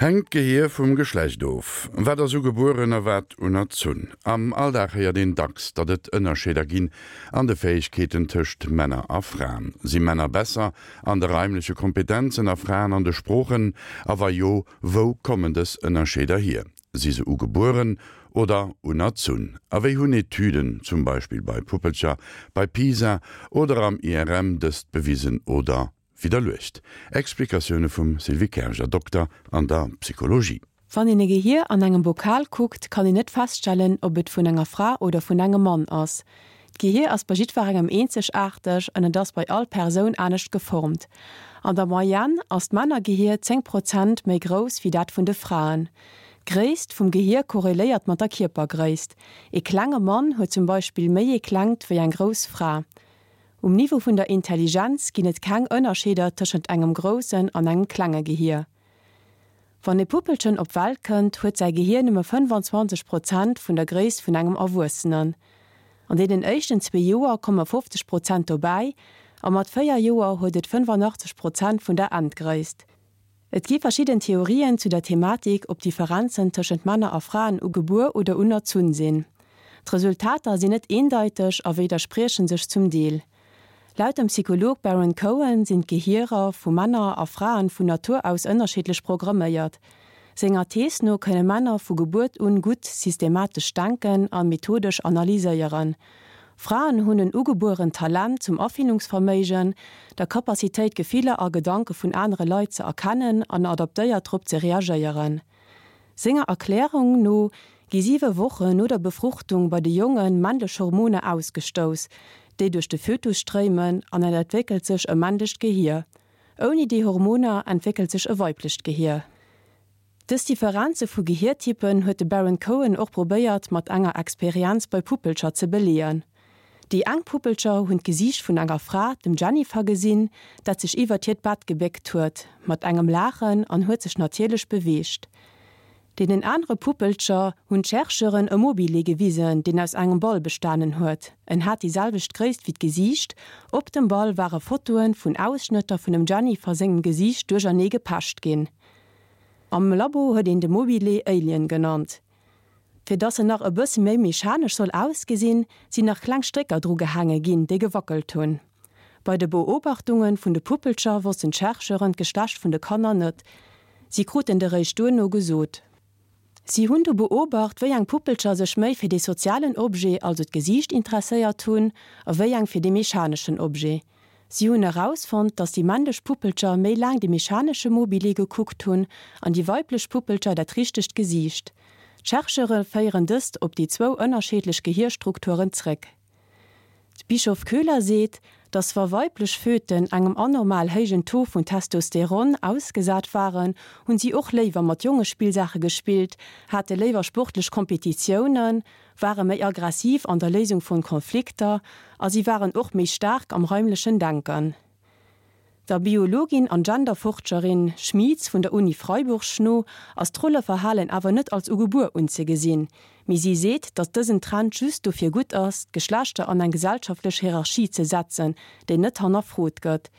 Hänkt d'Gehier vum Geschlecht of? Wat ass ugebueren a wat unerzunn? Am Alldag héiert een dacks, datt et Ënnerscheeder ginn an de Fäegkeeten tëscht Männer a Fraen. Si Männer besser an de raimleche Kompetenzen a Fraen an de Sproochen? A wa jo, wou kommen dës Ënnerscheeder hier? Si se ugebueren oder unerzunn? A wéi hunn Etüden, zum Beispill bei Puppelcher, bei PISA oder am IRM dëst bewisen oder Widderluecht. Explikatioune vum Sylvie Kerger, Dokter an der Psychologie. Wann een e Gehier an engem Bokal kuckt, kann een net feststellen, ob et vun enger Fra oder vun engem Mann ass. D'Gehier ass bei jiddwerengem eenzegaarteg an et ass bei all Persoun anescht geformt. An der Moyenne ass d'Männergehier 10 Prozent méi grouss wéi dat vun de Fraen. D'Gréisst vum Gehier korreléiert mat der Kierpergréisst. Ee klenge Mann huet zum Beispill méi ee klengt wéi eng grouss Fra. Um Niveau vun der Intelligenz ginn et keng Ënnerscheeder tëschent engem groussen an engem klenge Gehier. Wann e Puppelchen op d'Welt kënnt, huet säi Gehier nëmme 25 Prozent vun der Gréisst vun engem Erwuessenen. An deenen éischten zwee Joer komme 50 Prozent dobäi a mat 4 Joer huet et 85 Prozent vun der Endgréisst. Et gi verschidden Theorien zu der Thematik, ob Differenzen tëschent Männer a Fraen ugebuer oder unerzunn sinn. D'Resultater sinn net eendeiteg a widdersprieche sech zum Deel. Laut dem Psycholog Baron Cohen sinn d'Gehierer vu Männer a Fraen vun Natur aus ënnerschiddlech programméiert. Senger Thees no kënne Männer vu Gebuert un gutt systematesch denken a methodesch analyséieren. Fraen hunn en ugebuerent Talent zum Afillungsverméigen, der Capacitéit Gefiller a Gedanke vun anere Leit ze erkennen an adaptéiert drop ze reagéieren. Senger Erklärung no gi siwe Wochen no der Befruchtung bei de Jonge männlech Hormoner ausgestouss, déi duerch de Fötus stréimen an et entwéckelt sech e männlecht Gehier. Ouni déi Hormoner entwéckelt sech e weiblecht Gehier. Dës Differenze vu Gehiertypen huet de Baron Cohen och probéiert mat enger Experienz bei Puppelcher ze beleeën. Déi eng Puppelcher hunn d'Gesiicht vun enger Fra, dem Jennifer, gesinn, dat sech iwwert hiert Bett gebéckt huet, mat engem Laachen an huet sech natierlech beweegt. Deenen anere Puppelcher hunn d'Chercheuren e Mobile gewisen, deen aus engem Ball bestanen huet. En hat déi selwecht Gréisst wéi d'Gesiicht. Op dem Ball ware Fotoe vun Ausschnëtter vun dem Jennifer sengem Gesiicht duerchernee gepecht ginn. Am Labo huet een de Mobile Alien genannt. Fir dass en nach e bësse méi mechanesch soll ausgesinn, sinn nach kleng Strécker dru gehaange ginn, déi gewackelt hunn. Bei de Beobachtunge vun de Puppelcher wossten d'Chercheuren d'Geschlecht vun de Kanner net, si kruten et eréischt duerno gesot. Si hunn du beobacht, wéi eng Puppelcher sech méi fir dee sozialen Objet, also d'Gesiicht, interesséiert hunn a wéi eng fir dee mechaneschen Objet. Si hunn erausfonnt, dass déi männlech Puppelcher méi laang de mechanesche Mobile gekuckt hunn an déi weiblech Puppelcher dat richtegt Gesiicht. D'Chercheure féieren dëst op déi zwou ënnerscheedlech Gehierstrukturen zréck. D'Bischof-Köhler seet, datt wa weiblech Föten engem anormal héijen Taux vun Testosteron ausgesat waren, hunn si och léiwer mat Jongespillsaache gespillt, hate léiwer sportlech Kompetitiounen, ware méi aggressiv an der Léisung vun Konflikter a si waren och méi staark am raimlechen Denken. Der Biologin an Genderforscherin Schmieds vun der Uni Freiburg no ass d'Rolleverhalen awer net als ugebuer unzegesinn, mee si seet, datt dësen Trend just dofir gutt ass, d'Geschlechter an eng gesellschaftlech Hierarchie ze setzen, déi net hannerfrot gëtt.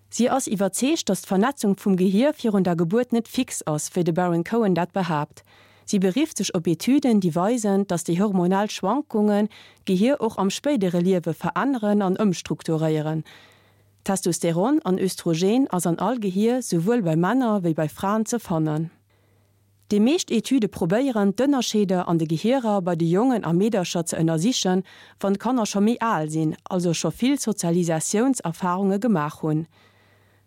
Si ass iwwerzeegt, datt d'Vernetzung vum Gehier virun der Gebuert net fix ass, wéi de Baron Cohen dat behaapt. Si berifft sech op Etüden, déi weisen, datt déi hormonell Schwankungen d'Gehier och am spéidere Liewe veränneren an ëmstrukturéieren. Testosteron an Östrogen ass an all Gehier, souwuel bei Männer wéi bei Fraen ze fannen. Déi meescht Etüde probéieren, d'Ënnerscheeder an de Gehierer bei de Jongen a Meedercher ze ënnersichen, wann d'Kanner scho méi al sinn, also scho vill Sozialisatiounserfarunge gemaach hunn.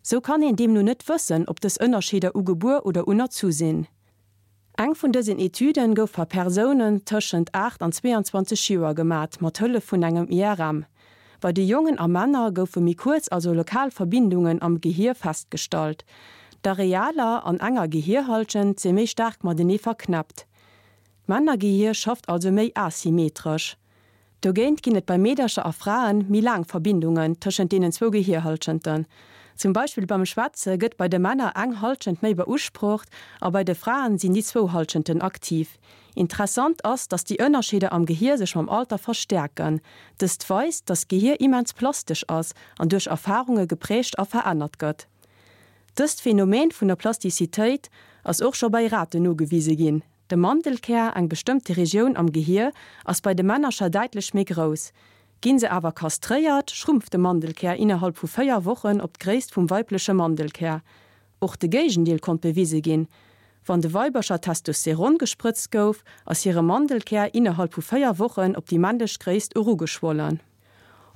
Sou kann een deemno net wëssen, ob dës Ënnerscheeder ugebuer oder unerzu sinn. Eng vun dësen Etüden gouf par Persounen tëschent 8 an 22 Joer gemat, mat Hëllef vun engem IRM. Bei de Jongen a Männer goufe méi kuerz, also lokal Verbindungen am Gehier festgestallt. D'Arealer an enger Gehierhallschent si méi staark matenee verknäppt. D'Männergehier schafft also méi asymmetresch. Dogéint ginn et bei Meedercher a Frae méi laang Verbindungen tëschent deenen zwou Gehierhallschenten. Zum Beispill beim Schwätze gëtt bei de Männer eng Hallschent méi beusprocht a bei de Fraen sinn déi zwou Hallschenten aktiv. Interessant ass, dass déi Ënnerscheeder am Gehier sech mam Alter verstäerken. Dëst weist, dass d'Gehier immens plastesch ass an duerch Erfarunge geprägt a verännert gëtt. Dëst Phänomen vun der Plastizitéit ass och scho bei Raten nogewise ginn. De Mandelkär, eng bestëmmte Regioun am Gehier, ass bei de Männercher däitlech méi grouss. Ginn se awer kastréiert, schrumpft de Mandelkär innerhalb vu 4 Wochen op d'Gréisst vum weibleche Mandelkär. Och de Géigendeel konnt bewise ginn, Wann de Weibercher Testosteron gesprëtzt gouf, ass hire Mandelkär innerhalb vu 4 Wochen op déi männlech Gréisst erugeschwollen.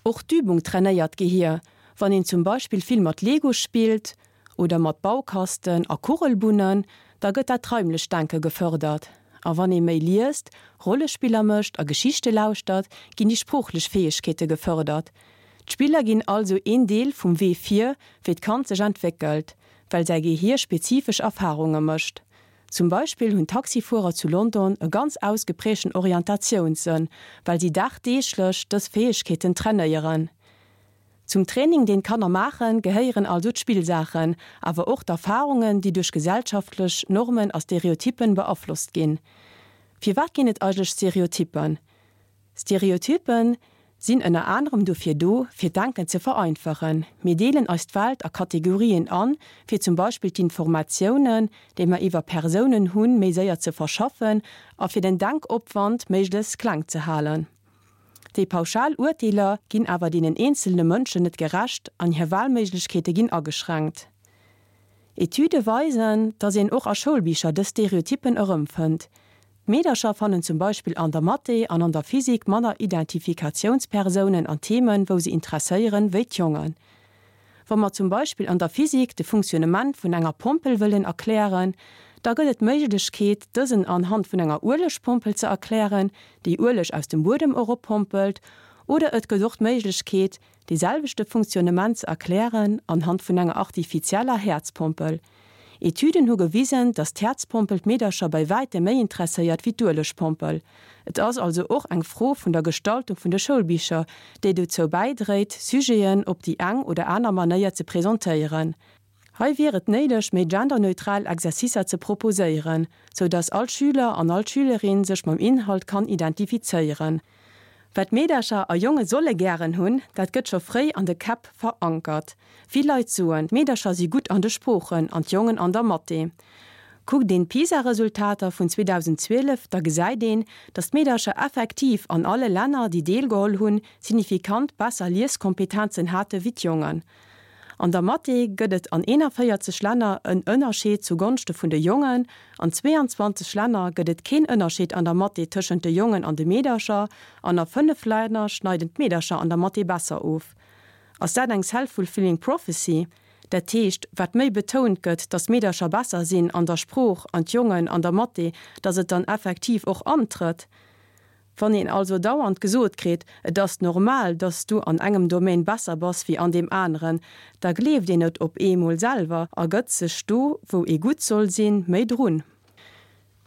Och d'Übung trainéiert d'Gehier. Wann een zum Beispill vill mat Lego spillt oder mat Baukasten a Kugelbunnen, da gëtt dat raimlecht Denke gefërdert. A wann ee méi liest, Rollespiller mécht a Geschichte lauschtert, ginn déi sproochlech Fäegkeete gefërdert. D'Spiller ginn also een Deel vum Wee vir, wéi d'Kand sech entwéckelt, well säi Gehier spezifesch Erfarunge mécht. Zum Beispill hunn Taxifuerer zu London e ganz ausgeprägten Orientatiounssënn, well si dagdeeglech dës Fäegkeeten trainéieren. Zum Training, deen d'Kanner maachen, gehéieren also d'Spillsaachen, awer och d'Erfarungen, déi duerch gesellschaftlech Normen a Stereotyppen beaflosst ginn. Firwat ginn et eigentlech Stereotyppen? Stereotypen sinn ënner anerem dofir do, fir d'Denken ze vereinfachen. Mir deelen eis d'Welt a Kategorien an, fir zum Beispill d'Informatiounen, déi mer iwwer Persounen hunn, méi séier ze verschaffen a fir den Denkopwand méiglechst kleng ze halen. Déi pauschal Urteeler ginn awer deenen eenzelne Mënschen net gerecht an hir Wahlméiglechkeete ginn ageschränkt. Etüde weisen, dass een och a Schoulbicher dës Stereotyppen erëmfënnt. D'Meedercher fannen zum Beispill an der Mathé an an der Physik manner Identifikatiounspersounen an Themen, wou se interesséieren, wéi d'Jongen. Wa mer zum Beispill an der Physik de Funktionnement vun enger Pompel wëllen erklären, da gëtt et d'Méiglechkeet, dësen anhand vun enger Uelegpompel ze erklären, déi Ueleg aus dem Buedem eroppompelt, oder et gëtt och d'Méiglechkeet, dee selwechte Funktionnement ze erklären anhand vun enger artifizieller Häerzpompel. Etüden hu gewisen, dass d'Häerzpompel d'Meedercher bei wäitem méi interesséiert wéi d'Uelegpompel. Et ass also och eng Fro vun der Gestaltung vun de Schoulbicher, déi dozou bäidréit, Sujeten op déi eng oder aner Manéier ze presentéieren. Hei wier et néideg, méi genderneutral Exercicer ze proposéieren, sou dass all Schüler an all Schülerin sech mam Inhalt kann identifizéieren. Wat Meedercher a Jonge solle gären hunn, dat gëtt scho fréi an de Käpp verankert. Vill Leit soen, d'Meedercher si gutt an de Sproochen an d'Jongen an der Mathé. Kuckt een d'PISA-Resultater vun 2012, da gesäit een, datt d'Meedercher effektiv an alle Länner, déi deelgeholl hunn, signifikant besser Lieskompetenzen hate wéi d'Jongen. An der Mathé gëtt et an 41 Länner en Ënnerscheed zu Gonschte vun de Jongen, an 22 Länner gëtt et keen Ënnerscheed an der Mathé tëschent de Jongen an de Meedercher an a 5 Länner schneiden d'Meedercher an der Mathé besser of. Ass dat eng self-fulfilling prophecy? Dat heescht, wat méi betount gëtt, datt d'Meedercher besser sinn an der Sprooch an d'Jongen an der Mathé, datt et dann effektiv och antrëtt? Wann een also dauernd gesot kritt, et ass normal, datt s du an engem Domaine besser bass wéi an deem aneren, da gleeft een et op eemol selwer a gëtt sech do, wou ee gutt soll sinn, méi drun.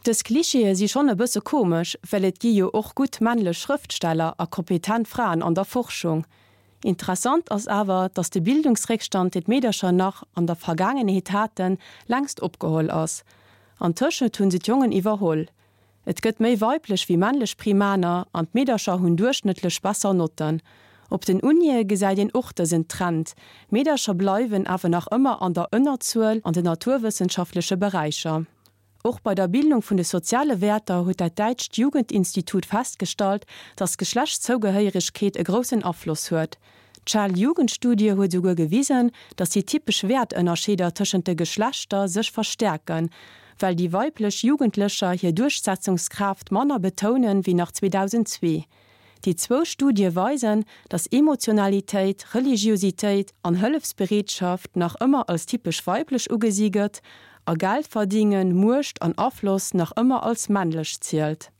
Dës Klischeeë si schonn e bësse komesch, well et gi jo och gutt männlech Schrëftsteller a kompetent Fraen an der Forschung. Interessant ass awer, datt de Bildungsréckstand, deen d'Meedercher nach an der Vergaangenheet haten, längst opgeholl ass. Antëschent hunn se d'Jongen iwwerholl. Et gëtt méi weiblech wéi männlech Primaner an d'Meedercher hunn duerchschnëttlech besser Notten. Op den Unie gesäit een och dësen Trend, Meedercher bleiwen awer nach ëmmer an der Ënnerzuel an den naturwëssenschaftleche Beräicher. Och bei der Bildung vun de soziale Wäerter huet dat däitscht Jugendinstitut festgestallt, datt d'Geschlechtszougehéieregkeet e groussen Afloss huet. D'Shell-Jugendstudie huet esouguer gewisen, datt déi typesch Wäertënnerscheeder tëschent de Geschlechter sech verstäerken, well déi weiblech Jugendlecher hir Duerchsetzungskraaft manner betounen wéi nach 2002. Déi zwou Studie weisen, datt Emotionalitéit, Religiositéit an Hëllefsbereetschaft nach ëmmer als typesch weiblech ugesi gëtt a Geldverdingen, Muecht an Afloss nach ëmmer als männlech zielt.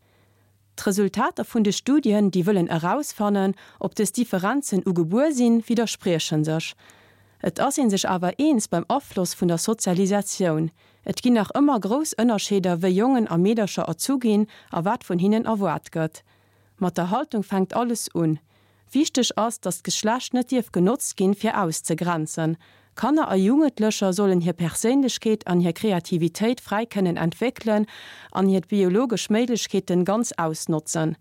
D'Resultater vun de Studien, déi wëllen erausfannen, ob dës Differenzen ugebuer sinn, widdersprieche sech. Et ass ee sech awer eens beim Afloss vun der Sozialisatioun. Et ginn nach ëmmer grouss Ënnerscheeder, wéi Jongen a Meedercher erzu ginn a wat vun hinnen erwaart gëtt. Mat der Haltung fänkt alles un. Wichteg ass, datt d'Geschlecht net dierf genotzt ginn, fir auszegrenzen. Kanner a Jugendlecher sollen hir Perséinlechkeet an hir Kreativitéit fräi kënnen entwéckelen an hir biologesch Méiglechkeeten ganz ausnotzen.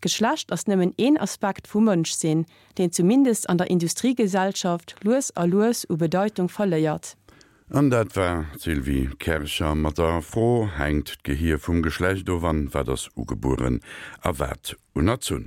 D'Geschlecht ass nëmmen een Aspekt vum Mënschsinn, deen zumindest an der Industriegesellschaft lues a lues u Bedeitung verléiert. An dat war d'Sylvie Kercher mat der Fro, Hänkt d'Gehier vum Geschlecht of an wat ass ugebueren a wat unerzunn?